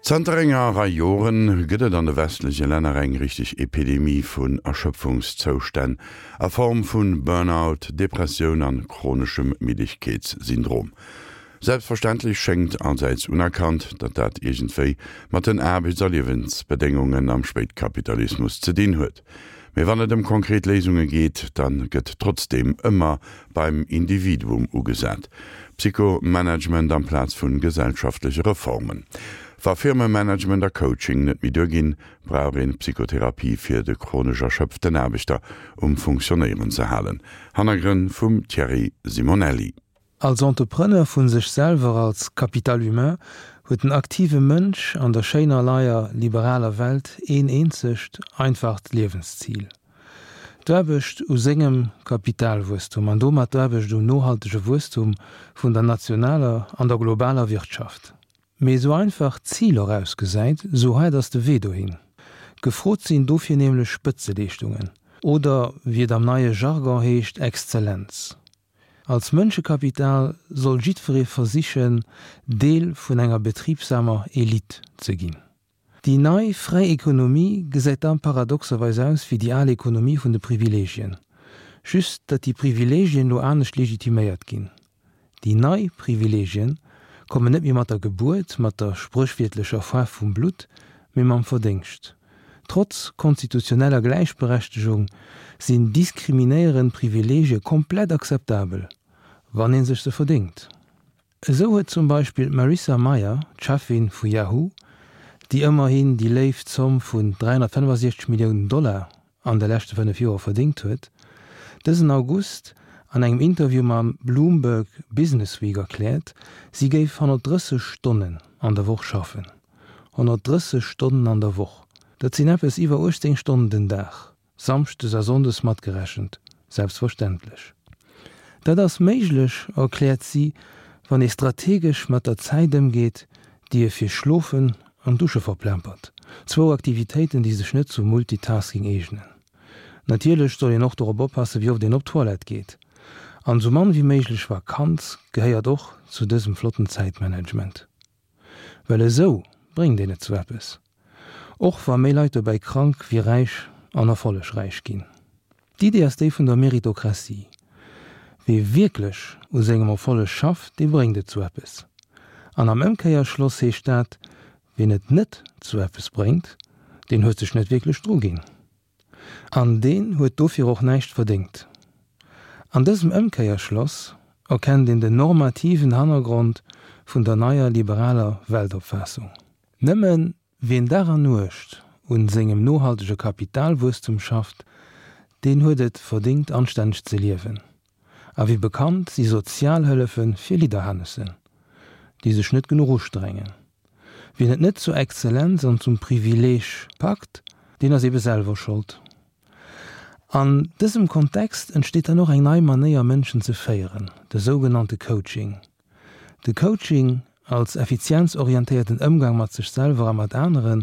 Zanter enger Rei Joren gëtt et an de westleche Länner eng richteg Epidemie vun Erschöpfungszoustänn a Form vun Burnout, Depressioun an chroneschem Middegkeetssyndrom. Selbstverständlech schéngt allsäits unerkannt, datt dat iergendwéi mat den Aarbechts a Liewensbedéngungen am Spéitkapitalismus ze dinn huet. Mee wann et ëm konkret Léisunge geet, da gëtt trotzdeem ëmmer beim Individuum ugesat. Psychomanagement amplaz vu gesellschaftleche Reformen. Wa Firmemanagement a Coaching net méi duerginn, brauch een Psychotherapie fir de chronesch erschöpften Aarbechter um Funktionéieren ze halen. Hannergrënn vum Thierry Simonelli. Als Entrepreneur vu sech selwer, als Capital humain, huet den aktive Mënsch an der schéiner neier liberaler Welt een eenzegt, einfacht Liewenszil, d'Aarbecht u sengem Kapitalwuesstum an domat d'Aarbecht um nohaltege Wuesstum vun der nationaler an der globaler Wirtschaft. Mee esou einfach d'Zil och ausgesäit, esou haart ass de Wee dohin. Gefrot sinn dofir nämlech Spëtzeleeschtungen, oder wéi et am neie Jargon heescht, Exzellenz. Als Mënschekapital soll jiddweree versichen, Deel vun enger betribsamer Elite ze ginn. Déi nei, fräi Ekonomie gesäit da paradoxerweis aus wéi déi al Ekonomie vun de Privilegien, just datt déi Privilegien lo anescht legitiméiert ginn. Déi nei Privilegien kommen net méi mat der Gebuert, mat der spréchwiertlecher Faarf vum Blutt, mee mam Verdéngscht. Trotz konstitutioneller Gläichberechtegung sinn diskriminéierend Privileegie komplett akzeptabel, wann ee sech se verdéngt. Esou huet zum Beispill d'Marissa Mayer, d'Cheffin vu Yahoo, déi ëmmerhin déi léif Zomm vun 365 Milliounen Dollar an de leschte 5 Joer verdéngt huet, dësen August an engem Interview mam Bloomberg Businessweek erkläert, si géif 130 Stonnen an der Woch schaffen. 130 Stonnen an der Woch, dat sinn eppes iwwer 18 Stonnen den Dag, samschdes a sonndes matgerechent, selbstverständlech. Dat ass méiglech, erkläert si, wann ee strategesch mat der Zäit ëmgeet, déi ee fir Schlofen an Dusche verplempert, zwou Aktivitéiten, déi sech net zum Multitasking eegnen. Natierlech soll een och dorop oppassen, wéi oft een op d'Toilette geet. An esou mann wéi méiglech Vakanz gehéiert och zu dësem flotten Zäitmanagement. Well esou bréngt een et zu eppes. Och wa méi Leit dobäi krank wéi räich an erfollegräich ginn. D'Idee ass déi vun der Meritokratie. Wee wierklech u sengem Erfolleg schafft, dee bréngt et zu eppes. An am Ëmkéierschloss heescht dat, wien et net zu eppes bréngt, deen huet sech net wierklech druginn. An deen huet dofir och näischt verdéngt. An dësem Ëmkéierschloss erkennt een den normativen Hannergrond vun der neier liberaler Weltopfaassung. Nëmme wien Dag an Nuecht un sengem nohaltege Kapitalwuesstum schafft, deen huet et verdéngt anstänneg ze liewen. A wéi bekannt si Sozialhëllefe fir Lidderhanessen, déi sech net genuch ustrengen. Wien et net zur Exzellenz an zum Privileeg packt, deen ass ebe selwer Schold. An dësem Kontext entsteet dann och eng nei Manéier Mënschen ze féieren, de sougenannte Coaching. De Coaching als effizienzorientéierten Ëmgang mat sech selwer a mat aneren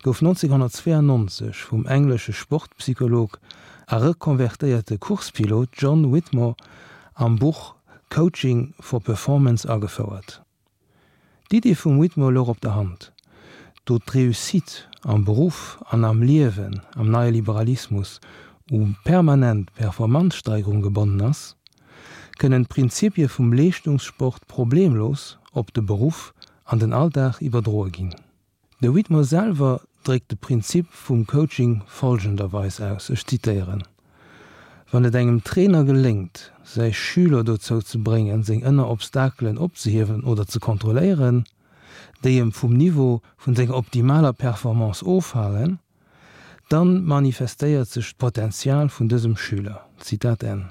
gouf 1992 vum englesche Sportpsycholog a rekonvertéierte Coursepilot John Whitmore am Buch Coaching for Performance agefouert. D'Idee vum Whitmore louch op der Hand, do d'Reussite am Beruff an am Liewen am neie Liberalismus u permanent Performanzsteigerung gebonnen ass, kënnen d'Prinzipie vum Leeschtungssport problemlos op de Beruff an den Alldag iwwerdroe ginn. De Whitmore selwer dréckt de Prinzip vum Coaching folgenderweis aus, ech zitéieren, Wann et engem Trainer geléngt, säi Schüler dozou ze bréngen, seng ënner Obstakelen opzehiewen oder ze kontrolléieren, déi em vum Niveau vun senger optimaler Performance ofhalen, Dann manifestéiert sech d'Potenzial vun dësem Schüler. Zitat Enn.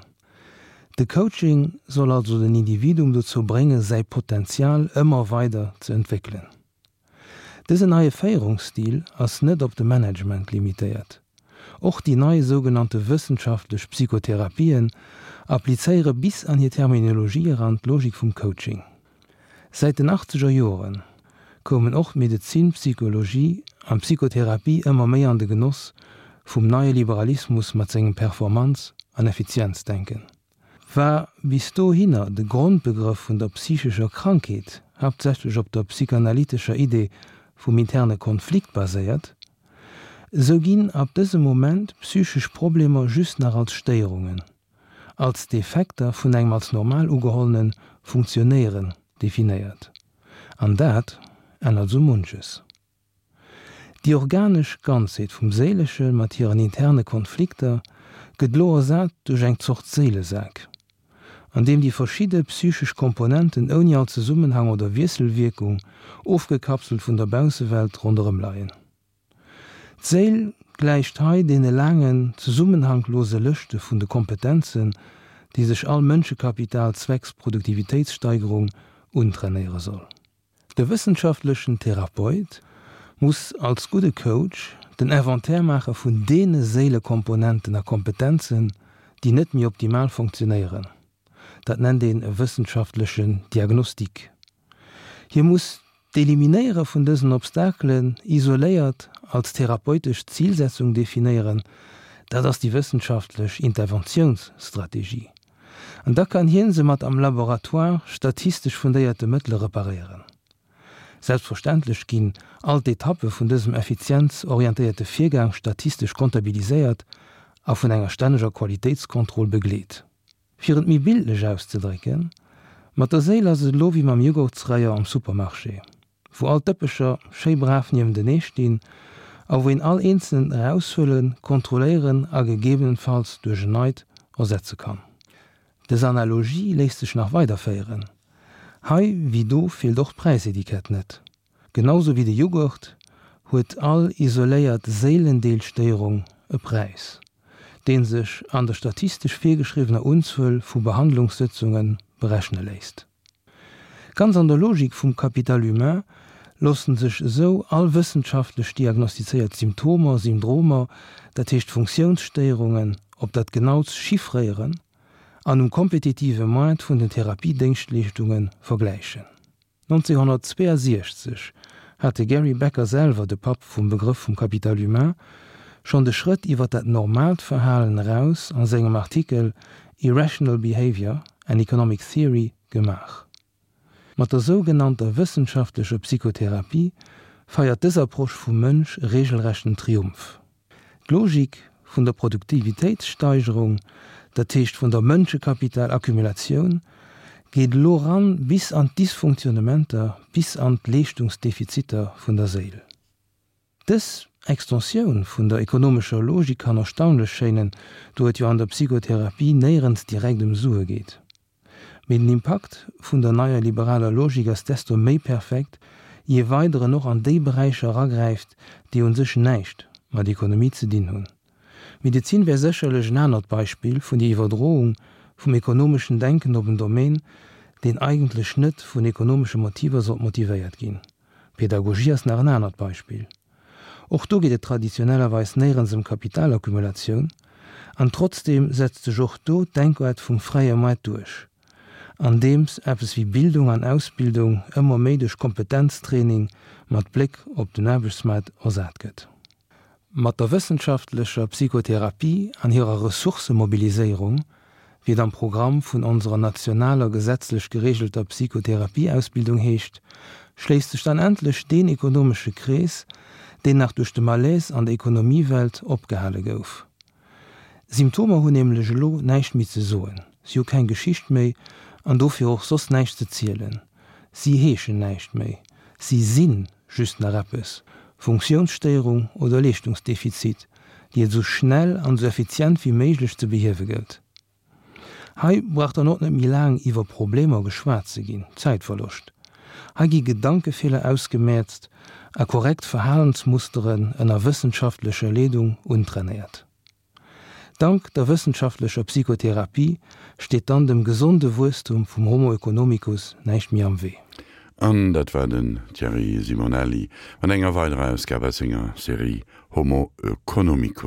De Coaching soll also den Individuum dozou bréngen, säi Potenzial ëmmer weider ze entwéckelen. Dësen neie Féierungsstil ass net op de Management limitéiert. Och déi nei sougenannte wëssenschaftlech Psychotherapien applizéiere bis an hir Terminologie eran d'Logik vum Coaching. Säit den achtzeger Joren koumen och d'Medezin, d'Psychologie an d'Psychotherapie ëmmer méi an de Genoss vum neie Liberalismus mat sengem Performanz an Effizienzdenken. War bis dohinner de Grondbegrëff vun der psychescher Krankheet haaptsächlech op der psychanalytescher Idee. vum interne Konflikt baséiert, esou ginn ab dësem Moment psychesch Problemer just nach als Stéierungen, als Defekter vun engem als normal ugehollene Funktionéieren definéiert. An dat ännert esou munches. Déi organesch Ganzheet vum Séilesche mat hiren interne Konflikter gëtt elo ersat duerch eng Zort Séilesak, an deem déi verschidde psychesch Komponenten ouni all Zesummenhang oder Wiesselwierkung, ofgekapselt vun der Baussewelt, ronderëm leien. D'Séil gläicht hei deene laangen, zesummenhanglose Lëschte vun de Kompetenzen, déi sech all Mënschekapital zwecks Produktivitéitssteigerung untrainéiere soll. De wëssenschaftlechen Therapeut muss als gudde Coach den Inventaire maache vun deene Séilekomponenten a Kompetenzen, déi net méi optimal funktionéieren. Dat nennt een e wëssenschaftlechen Diagnostic. Hie muss d'Eliminéiere vun dësen Obstakelen isoléiert als therapeutesch Zilsetzung definéieren, dat ass déi wëssenschaftlech Interventiounsstrategie. An da kann hien se mat am Laboratoire statistesch fundéierte Mëttele reparéieren. Selbstverständlech ginn all d'Etappe vun dësem effizienzorientéierte Virgang statistesch kontabiliséiert a vun enger stänneger Qualitéitskontroll begleet. Fir et méi bildlech auszedrécken, Mat der Séil ass et elo wéi mam Jughurtsrayon am Supermarché. wou all d'Dëppecher schéi brav niewentenee stinn a wou een all eenzelen eraushuelen, kontrolléieren a gegebenenfalls duerch en neit ersetze kann. Dës Analogie léisst sech nach weiderféieren. Hei wéi do feelt och d'Präisetikett net. Genau sou wéi de Jughurt huet all isoléiert Séilendeelstéierung e Präis, dee sech an der statistesch virgeschriwwener Unzuel vu Behandlungssëtzunge berechne léisst. Ganz an der Logik vum Capital humain loossen sech esou all wëssenschaftlech diagnostizéiert Symptomer, Syndromer, dat heescht Funktiounsstéierungen, op dat Genautst chiffréieren an um kompetitive Moart vun den Therapiedéngschtleeschtunge vergläichen. 1962 hat de Gary Becker selwer, de Papp vum Begrëff vum Capital humain, schonn de Schrëtt iwwer dat normaalt Verhalen eraus a sengem Artikel Irrational Behavior, An Economic Theory gemaach. Mat der sougenannter wëssenschaftlecher Psychotherapie feiert dës Approche vum Mënsch e regelrechten Triumph. D'Logik vun der Produktivitéitssteigerung, dat heescht vun der Mënschekapital-Accumulatioun, geet elo ran bis an d'Dysfunktionnementer, bis an d'Leeschtungsdefiziter vun der Séil. Dës Extensioun vun der ekonomescher Logik kann erstaunlech schéinen, do et jo an der Psychotherapie néierens direkt ëm Sue geet. Mee den Impakt vun der neier liberaler Logik ass desto méi perfekt, je weider en och an déi Beräicher eragräift, déi un sech näischt mat Ekonomie ze dinn hunn. D'Medezin wär sécherlech en anert Beispill vun der Iwwerdroung vum ekonomeschen Denken op en Domaine, deen eigentlech net vun ekonomesche Motiver sollt motivéiert ginn. D'Pedagogie ass nach en anert Beispill. Och do geet et traditionellerweis néierens ëm Kapitalaccumulatioun, an trotzdeem setzt sech och do d'Denkaart vum fräie Moart duerch, andeems eppes wéi Bildung an Ausbildung ëmmer méi duerch Kompetenztraining mat Bléck op den Aarbechtsmaart ersat gëtt. Mat der wëssenschaftlecher Psychotherapie an hirer Ressourcëmobiliséierung, wéi et am Programm vun onserer nationaler gesetzlech geregelter Psychotherapieausbildung heescht, schléisst sech dann endlech deen ekonomesche Krees, deen nach duerch de Malaise an der Ekonomiewelt opgehale gouf. Symptomer hunn nämlech elo näischt méi ze soen, si hu keng Geschicht méi an dofir och soss näischt ze zielen. Si heeschen näischt méi, si si just nach eppes, Funktiounsstéierung oder Leeschtungsdefizit, déi et esou schnell an esou effizient wéi méiglech ze behiewe gëllt. Hei brauch dann och net méi laang iwwer Problemer geschwat ze ginn, Zäitverloscht. Hei gi Gedankefeeler ausgemäerzt a korrekt Verhalensmusteren ënner wëssenschaftlecher Leedung untrainéiert. Dank der wëssenschaftlecher Psychotherapie steet dann dem gesonde Wuesstum vum Homo economicus näischt méi am Wee. An dat war den Thierry Simonelli mat enger weiderer Ausgab aus senger Serie Homo economicus.